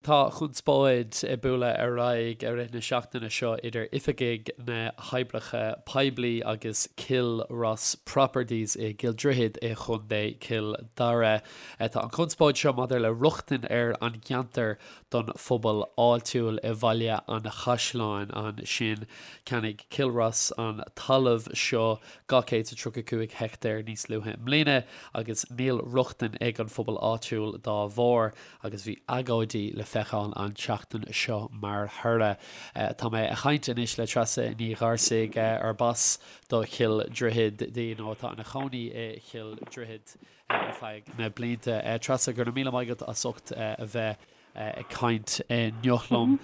Tá conspóid ag bualadh ar aghaidh i rith na seachtaine seo idir oifigigh na hOibreacha Poiblí agus Cill Rois Properties i gCill Droichid i gContae Chill Dara. Tá an chonspóid seo maidir le rochtain ar an gceantar don phobal áitiúil i Bhaile an Chaisleáin ansin. Cheannaigh Cill Rois an talamh seo 235 heicteár níos luaithe i mbliana agus níl rochtain ag an phobal áitiúil dá bharr. agus bhí agóidí le feiceáil an tseachtain seo mar thoradh. Tá mé ag caint anois le Treasa Ní Gharsaigh, arb as do Chill Droichid di nó atá ina cónaí i Chill Droichid ar feadh na blianta. Treasa, go raibh míle maith agat as ucht a bheith ag caint inniu liom.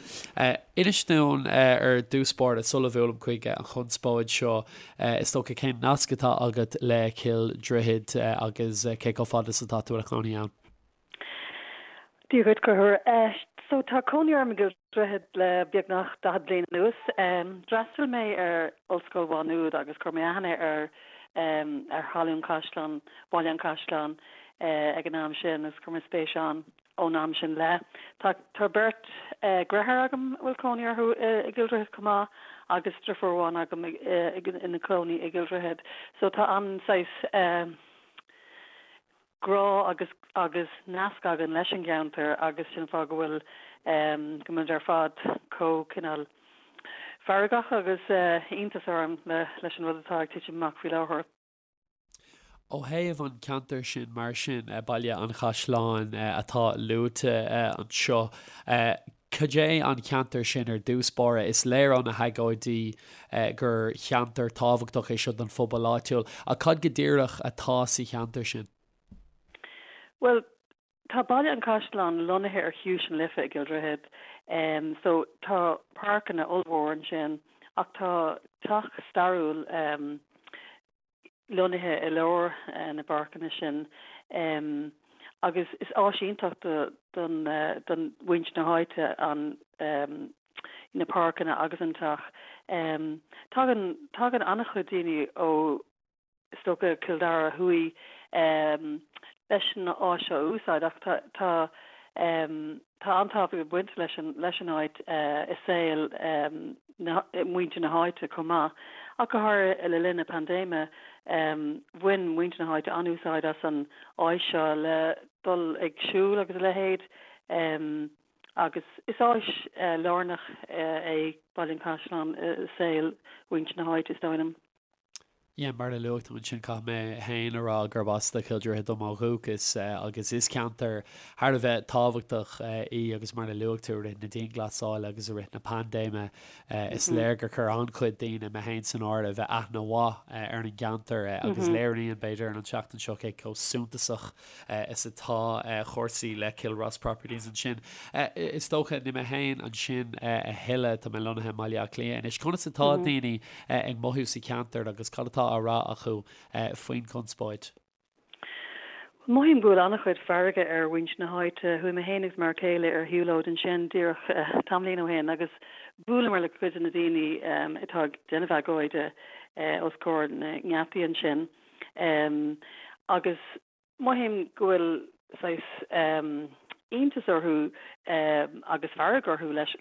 Inis dúinn ar dtús báire sula bhuailim chuig an chonspóid seo, is dócha, cén nasc atá agat le Cill Droichid agus cé chomh fada is atá tú i do chónaí ann? Dia dhuit, Conchúr. So tá cónaí orm i gCill Droichid le beagnach 40 bliain anuas. D'fhreastail mé ar Ollscoil Mhá Nuad agus chuir mé aithne ar ar thalamh Chaisleán, Bhaile an Chaisleáin ag an am sin agus chuir mé spéis ann ón am sin i leith. Tá tá beirt dheartháir agam a bhfuil cónaí orthu i gCill Droichid chomh maith agus deirfiúr amháin agam ina cónaí i gCill Droichid. So tá an saghas grá agus agus nasc againn leis an gceantar agus sin an fáth go bhfuil go bhfuilimid ar fad chomh cineál feargach agus iontas orainn leis an rud atá ag titim amach faoi láthair. Ó thaobh an ceantar sin mar sin, Baile an Chaisleáin atá luaite anseo, Cad é an ceantar sin ar dtús báire? Is léir ó na hagóidí gur cheantar tábhachtach é seo don phobal áitiúil, ach cad go díreach atá sa cheantar sin? Bhuel, tá Baile an Chaisleáin lonnaithe ar Chiumhais na Life i gCill Droichid, so tá páirceanna ollmhór ansin ach tá teach stairiúil lonnaithe i lár na bpáirceanna sin agus is áis iontach don don mhuintir na háite an na páirceanna agus an teach. Tagann tagann an-chuid daoine ó is dócha Cill Dara Thuaidh leis an áis seo a úsáid ach tá tá Tá an-tábhacht ag baint leis an leis an áit i saol na muintir na háite chomh maith, ach go háirithe le linn na paindéime bhain muintir na háite an-úsáid as an áis seo le dul ag siúl agus a leithéid agus is áis lárnach é Baile an Chaisleáin i saol mhuintir na háite, is dóigh liom. Yeah, mar a luaigh tú ansin, caithfidh mé féin a rá gurb as do Chill Droichid dom ó dhúchas agus is ceantar thar a bheith tábhachtach í agus mar a luaigh tú, i rith na dianghlasála agus i rith na paindéime is léir gur chuir an-chuid daoine, mé féin san áireamh, aithne mhaith ar an gceantar agus léiríonn, b'fhéidir, an tseachtain seo cé chomh suntasach is atá cúrsaí le Cill Rois Properties ansin. Is dócha, níl mé féin ansin a thuilleadh, tá mé lonnaithe i mBaile Átha Cliath anois. Conas atá daoine ag mothú sa cheantar agus cad atá á rá acu faoin chonspóid? Mothaím go bhfuil an-chuid feirge ar mhuintir na háite. Chuaigh mé féin agus m'fhear céile ar shiúlóid ansin díreach tamaillín ó shin agus bhuaileamar le cuid de na daoine atá ag déanamh agóide os comhair na ngeataí ansin. Agus mothaím go bhfuil saghas iontas orthu agus fearg orthu leis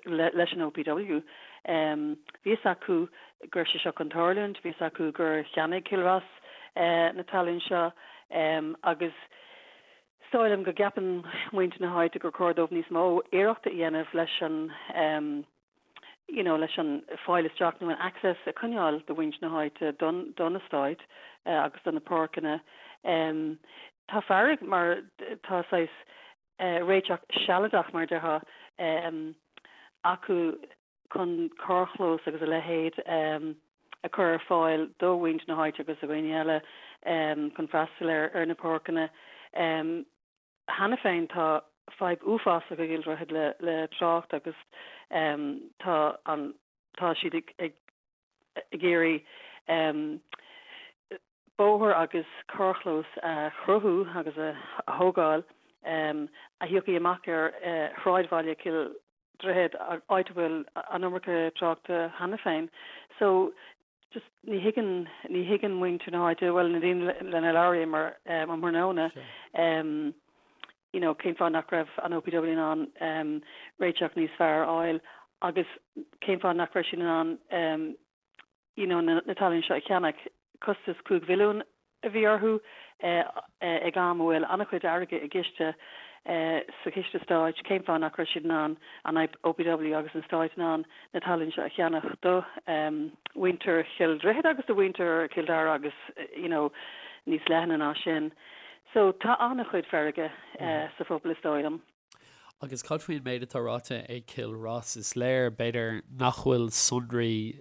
leis an OPW. Bhí fhios acu go raibh sé seo chun tarlúint, bhí fhios acu gur cheannaigh Cill Rois na talún seo agus is dóigh liom go gceapann muintir na háite gur chóir dóibh níos mó iarrachta a dhéanamh leis an you know, leis an fáil isteach nó an access a choinneáil do mhuintir na háite don don eastát agus do na páirceanna. Tá fearg mar tá saghas réiteach sealadach mar a déarfá acu chun carrchlós agus a leithéid a chur ar fáil do mhuintir na háite agus do dhaoine eile chun freastal ar ar na páirceanna. Cheana féin tá fadhb uafásach i gCill Droichid le le trácht agus tá an tá siad ag ag ag iarraidh bóthar agus carrchlós a chruthú agus a thógáil a thiocfaidh amach ar shráidbhaile Chill Droichid, áit a bhfuil an iomarca tráchta cheana féin. So just ní thuigeann, ní thuigeann muintir na háite, bhuel na daoine lena labhraíomar um thráthnóna. You know, cén fáth nach raibh an OPW in ann réiteach níos fearr a fháil agus cén fáth nach raibh siad in ann you know, na talún seo a cheannach. Costas 5 mhilliún a bhí orthu ag am a bhfuil an-chuid airgid i gciste sa chiste stáit. Cén fáth nach raibh siad in ann, an OPW agus an stáit in ann na talún seo a cheannach do mhuintir Chill Droichid agus do mhuintir Chill Dara agus you know, níos leithne ná sin. So tá an-chuid feirge sa phobal is dóigh liom. Agus cad faoin méid atá ráite ag Cill Rois? Is léir, b'fhéidir, nach bhfuil sonraí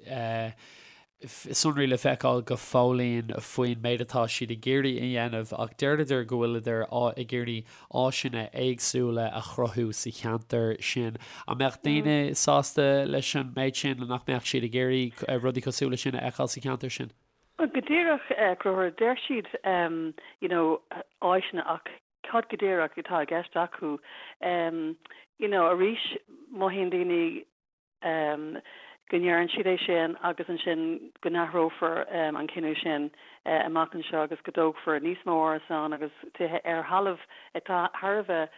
sonraí le feiceáil go fóillín faoin méid atá siad ag iarraidh a dhéanamh ach deireadar go bhfuileadar ag iarraidh áiseanna éagsúla a chruthú sa cheantar sin. An mbeadh daoine sásta leis an méid sin? Nach mbeadh siad ag iarraidh rudaí cosúil leis sin a fheiceáil sa cheantar sin? Bhuel, go díreach, a Chonchúir, deir siad you know áiseanna ach cad go díreach atá i gceist acu? You know, arís, mothaíonn daoine go ndeireann siad é sin agus ansin go n-athrófar an cinneadh sin amach anseo agus go dtógfar níos mó árasán agus tithe ar thalamh atá thar a bheith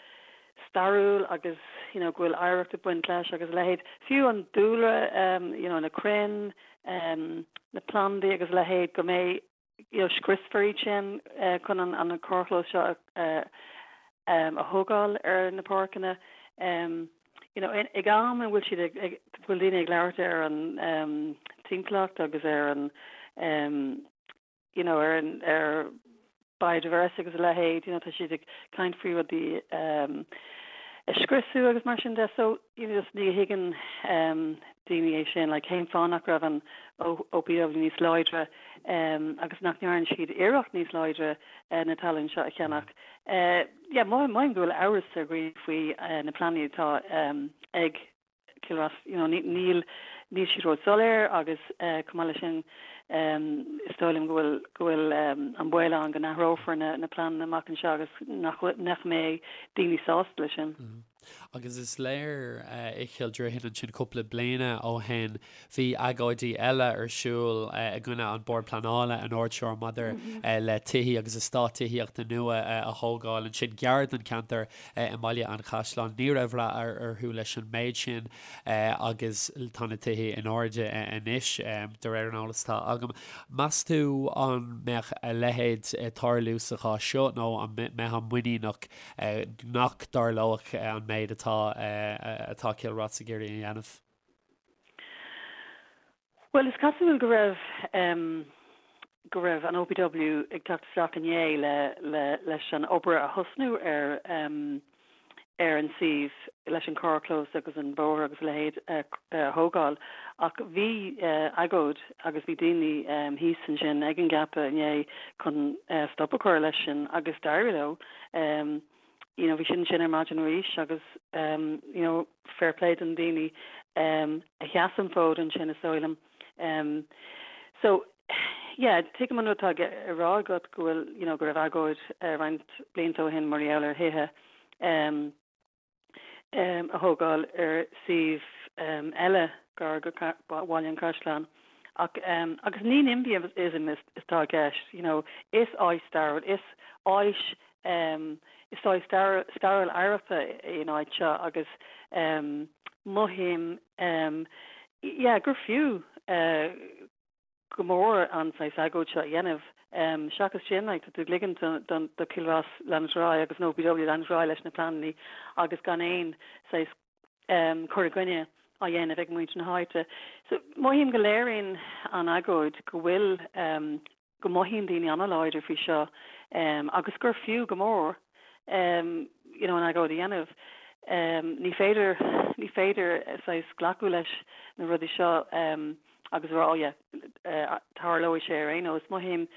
stairiúil agus you know go bhfuil oidhreacht ag baint leis agus a leithéid. Fiú an dúlra, you know na crainn, na plandaí agus a leithéid, go mbeidh, you know scriosfar iad sin chun an carrchlós seo a thógáil ar na páirceanna. You know ag am a bhfuil siad ag, bhfuil daoine ag labhairt ar an timpeallacht agus ar an you know, ar an, ar biodiversity agus a leithéid, you know, tá siad ag caint faoi rudaí um, a scriosadh agus mar sin de, so, you know, just ní thuigeann um, daoine é sin, like, cén fáth nach raibh an OPW níos láidre um, agus nach ndearna siad iarracht níos láidre uh, na talún seo a cheannach. Uh, yeah, mothaím go bhfuil amhras ar dhaoine faoi uh, na pleananna atá um, ag Cill Rois, you know, níl, níl siad ró-soiléir agus chomh maith leis sin is dóigh liom go bhfuil, go bhfuil an baol ann go n-athrófar na, na pleananna amach anseo agus nach, nach mbeidh daoine sásta leis sin. Agus is léir i Chill Droichid ansin cúpla bliana ó shin bhí agóidí eile ar siúl i gcoinne an Bord Pleanála an uair seo maidir le tithí agus eastát tithíochta nua a thógáil ansin gar don cheantar i mBaile an Chaisleáin. Ní raibh rath orthu leis an méid sin agus tá na tithe in airde anois, de réir an eolais atá agam. Meas tú an mbeadh a leithéid ag tarlú sa chás seo nó an mbeifeá muiníneach nach dtarlódh an méid atá atá Cill Rois ag iarraidh a dhéanamh? Bhuel, is cosúil go raibh go raibh an OPW ag teacht isteach inné le le leis an obair a thosnú ar ar an suíomh leis an carrchlós agus an bóthar agus a leithéid a thógáil ach bhí agóid agus bhí daoine thíos ansin ag an gceapadh inné chun stop a chur leis sin agus d'éirigh leo. You know, bhí siad ansin ar maidin arís agus you know, fair play do na daoine a sheas an fód ansin is dóigh liom. So, yeah, tuigim an rud atá á rá agat go bhfuil, you know, go raibh agóid roinnt blianta ó shin mar gheall ar thithe a thógáil ar suíomh eile gar go Bhaile an Chaisleáin. Ach, agus ní NIMBYism atá i gceist, you know, is áit stairiúil, is áit Is áit stairiúil oidhreachta í an áit seo agus mothaím yeah gur fiú go mór an saghas agóid seo a dhéanamh. Seachas sin, like, tá tú ag ligint do Cill Rois leanúint ar aghaidh agus an OPW leanúint ar aghaidh leis na pleananna agus gan aon saghas cur i gcoinne á dhéanamh ag muintir na háite. So mothaím go léiríonn an agóid go bhfuil go mothaíonn daoine an-láidir faoi seo agus gur fiú go mór you know an agóid a dhéanamh. Ní féidir, ní féidir saghas glacadh leis na rudaí seo agus a rá oh yeah tarlóidh sé ar aon nós. Mothaím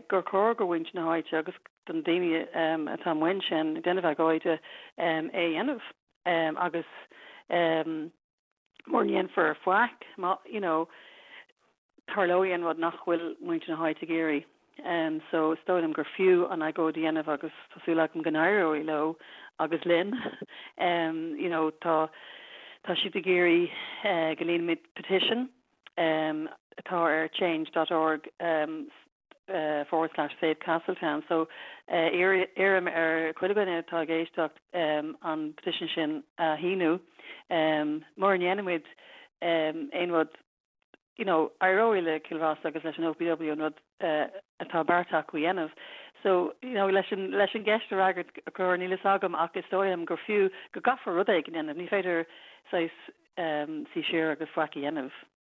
gur chóir do mhuintir na háite agus do na daoine atá amuigh ansin ag déanamh agóide é a dhéanamh agus mura ndéanfar faic, má, you know, tarlóidh an rud nach bhfuil muintir na háite ag iarraidh. So is dóigh liom gur fiú an agóid a dhéanamh agus tá súil agam go n-éireoidh leo agus linn. You know, tá, tá siad ag iarraidh go líonfaimid petition atá ar change dot org. forward slash save Castletown. So iarraim ar chuile dhuine atá ag éisteacht an petition sin a shíniú. Mura ndéanann muid aon rud, you know, éireoidh le Cill Rois agus leis an OPW an rud atá beartaithe acu a dhéanamh. So, you know, leis an, leis an gceist a fhreagairt, a Chonchúir, níl fhios agam ach is dóigh liom gur fiú, go gcaithfear rud éigin a dhéanamh. Ní féidir saghas suí siar agus faic a dhéanamh.